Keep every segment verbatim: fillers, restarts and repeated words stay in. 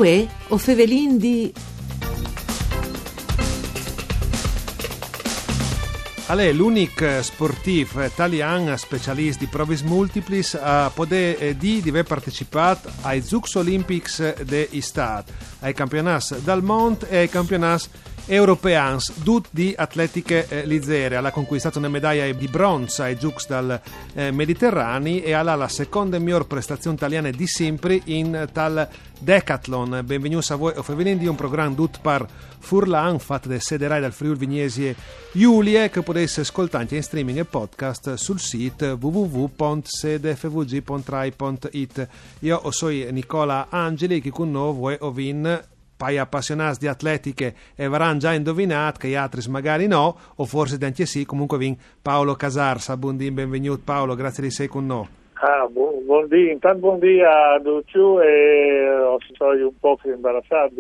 Uè, o fevelin di... Al è l'unic sportîf talian specialist di provis multiplis a podê, eh, dî di vê partecipât ai Zûcs Olimpics de Istât, ai campionâts dal mont e ai campionâts europeans, dut di atletiche, eh, lizere. Al à conquistât une medaie di bronç ai Zûcs dal, eh, Mediterani e al à la seconde miôr prestazion taliane di simpri in tal decathlon. Benvignûts a vuê o fevelin di, un program dut par furlan, fat de Sederai dal Friûl Vignesie Julie, che o podês scoltâ ancje in streaming e podcast sul sît w w w pont sede f v g pont rai pont i t. Jo o soi Nicola Angeli, chi cun nô vuê o vin pai apassionâts di atletiche e varan za induvinât, chei altris magari no, o forsit ancje sì, comunque o vin Paolo Casarsa. Bundì, benvignût Paolo, grazie di sei cun nô. Ah, bu-, bundì, intant bundì a ducj e o soi un pôc imbarassât,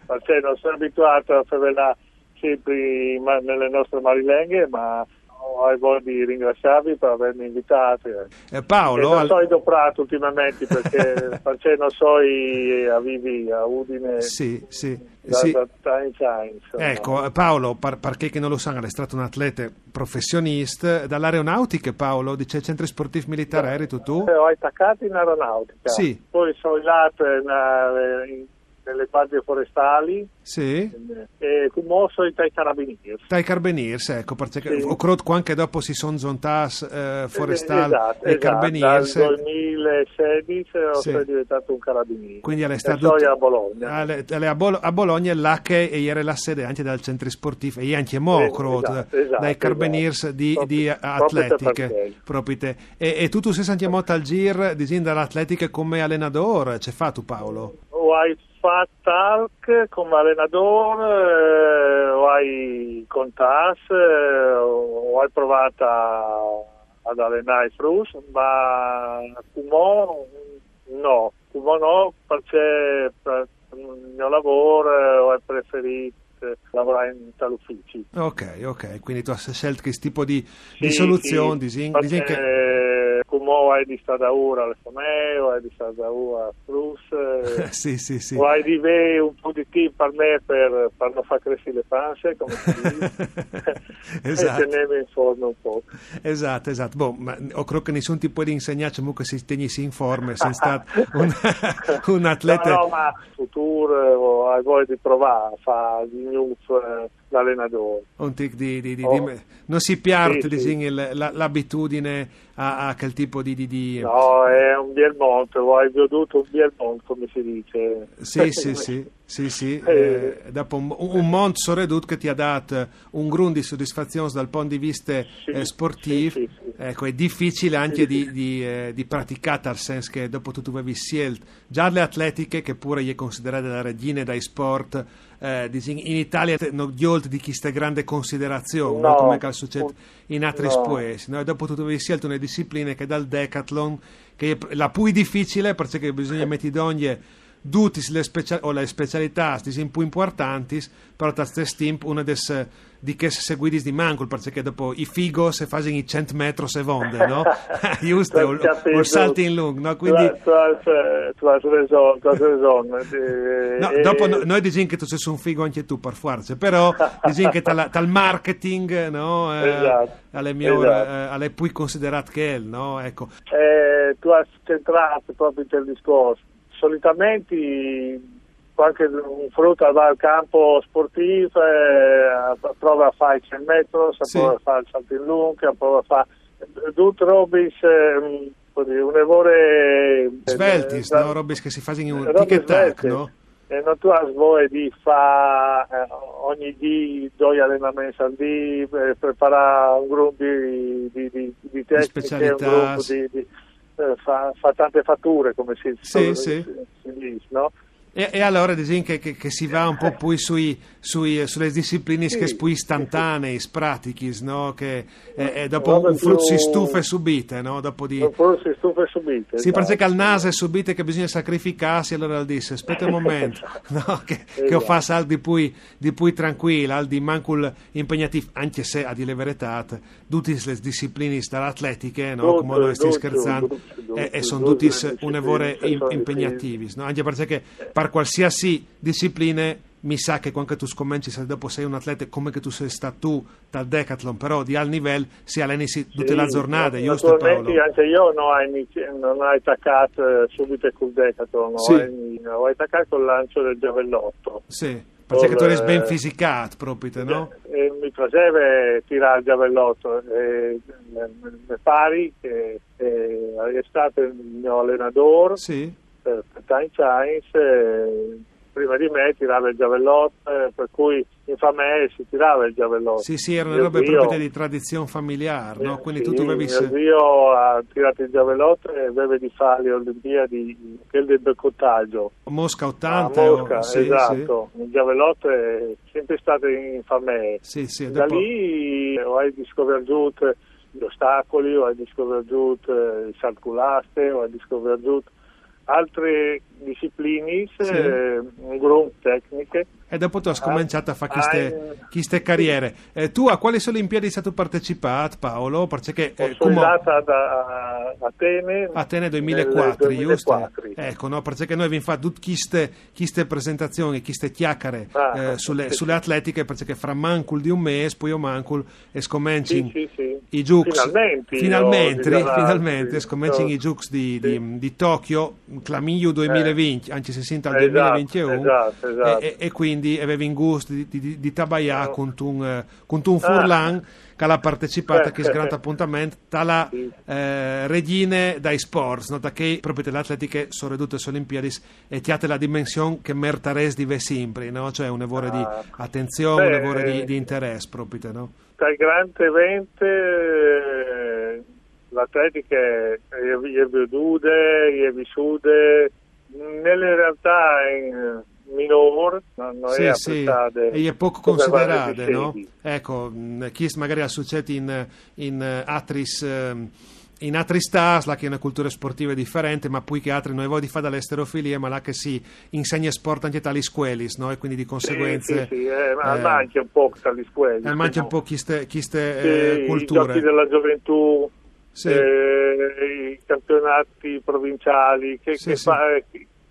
parcè no soi abituât a fevelâ simpri ma-, ne nostre marilenghe, ma o ai voie di ringraziâvi par vêmi invitât. Eh, Paolo, e no al- soi doprât ultimamentri, parcè, parcè no soi a vivi a Udine. Sì, sì, da, sì. Da tancj agns, insome. Eco, eh, Paolo, par, par chei che no lu san, al è stât un atlete professionist. Da aeronautiche, Paolo, di ce centri sportîf militâr eri tu? Eh, o ai tacât in aeronautiche. Sì. Po o soi lât, eh, ne, ne guardie forestâl. Sì. E cumò o soi tai carabinîrs. Tai carabinîrs, eco, parcè che o crôt che ancje dopo si son zontâts, eh, forestâl e carabinîrs. Dal doi mil e sedis o soi deventât un carabinîr. Quindi al è stât... E o soi a Bologna. Al è, al è a Bol-, a Bologne, là che e jere la sede ancje dal centri sportîf, e je ancjemò, o crôt, dai carabinîrs di, di atletiche, propit. E, e tu, tu sês ancjemò tal zîr, disìn, da l'atletiche come alenadôr, ce fâstu, Paolo? O ai fat alc come alenadôr, eh, o ai contâts, eh, o ai provât a, a alenâ i fruts, ma cumò no, cumò no, parcè par il gno lavôr, eh, o ai preferît, eh, lavorâ intal ufici. Ok, ok, quindi tu âs sielt chest tipo di, di soluzion, disìn, disìn che... Cumò o ai di stâ daûr ae famee, o ai di stâ daûr ai fruts, eh, sì, sì, sì. O ai di vê un pôc di timp par me par, par no fâ cressi la panze, come si dîs. Esat. E tenêmi in forme un pôc. Esat, esat. Bon, ma o crôt che nissun ti pues insegnâ, comunque, se tegnissi in forme, se sês stât un, un atlete. No, no, ma in futûr, eh, o ai voie di provâ a fâ di gnûf, eh, l'alenadôr. Un tic di, di, di, di me-, no si piert, disìn, il, la, l'abitudine a, a chel tipo di, di, di... No, al è un biel mont, o ai viodût un biel mont, come si dîs. Sì, sì, sì, sì, sì. Eh, dopo un, un mont soredut che ti à dât un grum di sodisfazions dal pont di viste, eh, sportîf. Sì, sì, sì. Eco, al è dificil ancje di, di, eh, di praticâ, tal sens che dopo tu, tu vevis sielt za la atletiche, che pure e je considerade la regjine dai sport, eh, disìn, in Italie, no, gjolt di cheste grande considerazion, no? Come che al sucêt in altris puescj, no? E dopo tu, tu vevis sielt une discipline che e je dal decathlon, che e je la plui dificile, parcè che bisugne meti dongje dutis lis specia-, o lis specialitâts, disìn, plui impuartantis, però tal stes timp une des, di chês seguidis di mancul, parcè che dopo i figos a fasin i cent metris e vonde, no? Just, o, o saltin lunc, no? Quindi tu âs, tu âs, eh, tu âs reson, tu âs reson. No, dopo no, nô o disìn che tu sês un figo ancje tu, par fuarce, però disìn che tal, tal marketing, no? Eh, al è miôr, eh, al è plui considerât chel, no? Eco. Eh, tu âs centrât propit il discors. Solitamentri cuant che un frut al va al camp sportîf, eh, al prove a fâ i cent metris, al prove a fâ il saltin lunc, al prove a fâ dut robis, eh, come dî, une vore, eh, sveltis, no? Robis che si fasin un tic e tac, no? E no tu âs voie di fâ, eh, ogni dì doi alenaments al dì, eh, preparâ un grum di, di, di, di tecniche, un grum di, di, eh, fâ, fâ tante fature, come si, si dîs, no? E, e alore disìn che, che, che si va un pôc plui sui, sui, su lis disciplinis chês plui istantaneis, pratichis, no? Che, e, e dopo un frut si stufe subite, no? Dopo di... Un frut si stufe subite, sì, esat. Parcè che al nase subite che bisugne sacrificâsi, alore al dîs: «Spiete un moment, no? Che, che o fâs alc di plui, di plui trancuil, alc di mancul impegnatîf», ancje se, a dî la veretât, dutis lis disciplinis da l'atletiche, no? Come nô o stin scherçant, e, e son dutis une vore impegnativis, no? Ancje parcè che par Qualsiasi discipline, mi sa che quando tu scomencis e dopo sei un atleta come che tu sei stà tu tal decathlon, però di alt nivel si alenisi tutte Sì, la giornata, nat- giusto Naturalmente Paolo? Anche io non ho, inizi- non ho attaccato eh, subito col decathlon, Sì. ho, in- ho attaccato col lancio del giavellotto. Sì, perché tu eri Col, ben eh, fisicato, proprio, no? E mi piaceva tirare il giavellotto. E, eh, mi pare che eh, è stato il mio allenatore Sì. per, per tanti anni, eh, prima di me tirava il giavellotto, eh, per cui in famiglia si tirava il giavellotto. Sì, sì, era una Mio roba zio- proprio di tradizione familiare, no? Quindi Sì, tu dovevi... mio zio ha tirato il giavellotto e aveva di fare le Olimpiadi, quelle del boccotto. Mosca A ottanta, o- Mosca, sì, esatto. Il giavellotto è sempre stato in famiglia. Sì, sì, e Da dopo- lì ho scoperto gli ostacoli, ho scoperto il salto con l'aste, ho scoperto altre discipline, Sì. eh, un gruppo tecniche. E dopo tu hai scominciato a fare queste, Ah, queste carriere. Eh, tu a quali Olimpiadi sei stato partecipato, Paolo? Perché eh, Sono come... andata da Atene. Atene nel duemilaquattro, giusto? duemilaquattro. Ecco, no? Perché noi abbiamo fatto tutte queste, queste presentazioni, queste chiacchiere Ah, eh, sulle, sì. sulle atletiche, perché fra mancul di un mese, poi io mancul, e scomenci Sì, sì, sì. i Giucs. Finalmente, Finalmente, io, di là, finalmente, sì. scomenci No. i Giucs di, Sì. di, di Tokyo, claminio duemilaventi, anche se senta al Esatto, duemilaventuno. esatto, esatto. E, e- e quindi avevi in gusto di, di, di tabaglià No. con un, eh, con un Ah. furlan che l'ha partecipato Eh, a questo grande appuntamento, tra la Sì. eh, regine dai sports, no? Da che proprio le atletiche sono ridotte alle Olimpiadi e ti ha la dimensione che mertaresti di avere sempre, no? Cioè un lavoro di Ah. attenzione, Beh, un lavoro di, eh, di interesse proprio, no? Dai grandi eventi, eh, l'atletica è, è, è veduta, è vissuta nelle realtà in minore, non, non Sì, è sì, apprezzata e è poco come considerate, valore di no? sedi. Ecco, mm, chi magari al succede in, in eh, atris, ehm, in atris stati, là che è una cultura sportiva differente, ma poi che altri noi vogliamo fare dall'esterofilia, ma là che si insegna sport anche tali scuelis, no? E quindi di conseguenza... Sì, sì, sì, eh, ma eh, manca un po' tali scuelis. eh, manca un no? po' queste, queste Sì, eh, i culture. giochi della gioventù, Sì. eh, i campionati provinciali, che, Sì, che sì. fa- eh,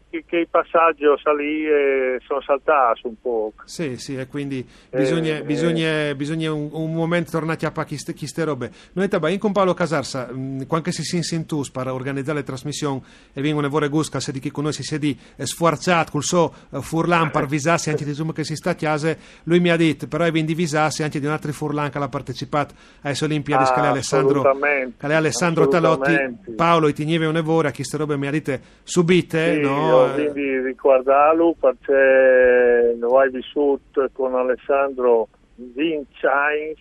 che, che i passaggi lì eh, sono saltati un po'. Sì, sì, e quindi bisogna, Eh, bisogna, bisogna un, un momento tornare a chiappare queste, queste robe. Noi tabbiamo con Paolo Casarsa, mm, quando si si insintus per organizzare le trasmissioni e vengono fuori Gusca, se di chi con noi si siedi eh, sfuarciato col suo eh, furlan per visarsi anche di insomma che si sta a casa, lui mi ha detto, però è ben divisarsi anche di un altro furlan che ha partecipato alle Olimpiadi, Ah, che è Alessandro, assolutamente, che è Alessandro Talotti. assolutamente. Paolo, ti gneve un evore a queste robe, mi ha detto subite, Sì, no? io quindi ricordarlo perché lo hai vissuto con Alessandro venti anni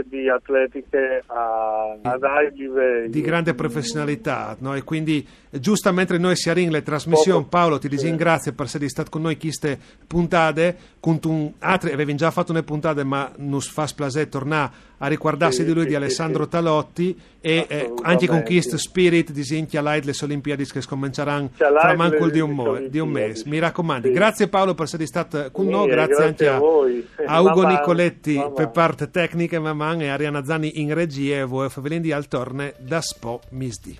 di atletiche a, ad alti livelli. Di grande professionalità, no? E quindi eh, giustamente noi siamo in le trasmissioni, Poco- Paolo, ti sì. ringrazio per essere stato con noi queste puntate, con un altro, avevi già fatto una puntata, ma non fa piacere tornare a ricordarsi Sì, di lui, sì, di sì, Alessandro sì. Talotti, e eh, Assolutamente. Anche con questo spirito, disegna light le Olimpiadi che scominceranno C'è fra light mancul le- di un, le mo- di un Olimpiadi. mese. Mi raccomando. Sì. Grazie Paolo per essere stato con Sì, noi, grazie, grazie anche a voi. a Ugo Mamma, Nicoletti mamma. Per parte tecniche, Maman e Arianna Zanni in regia, e voi favelin di al torne da Spo Misdi.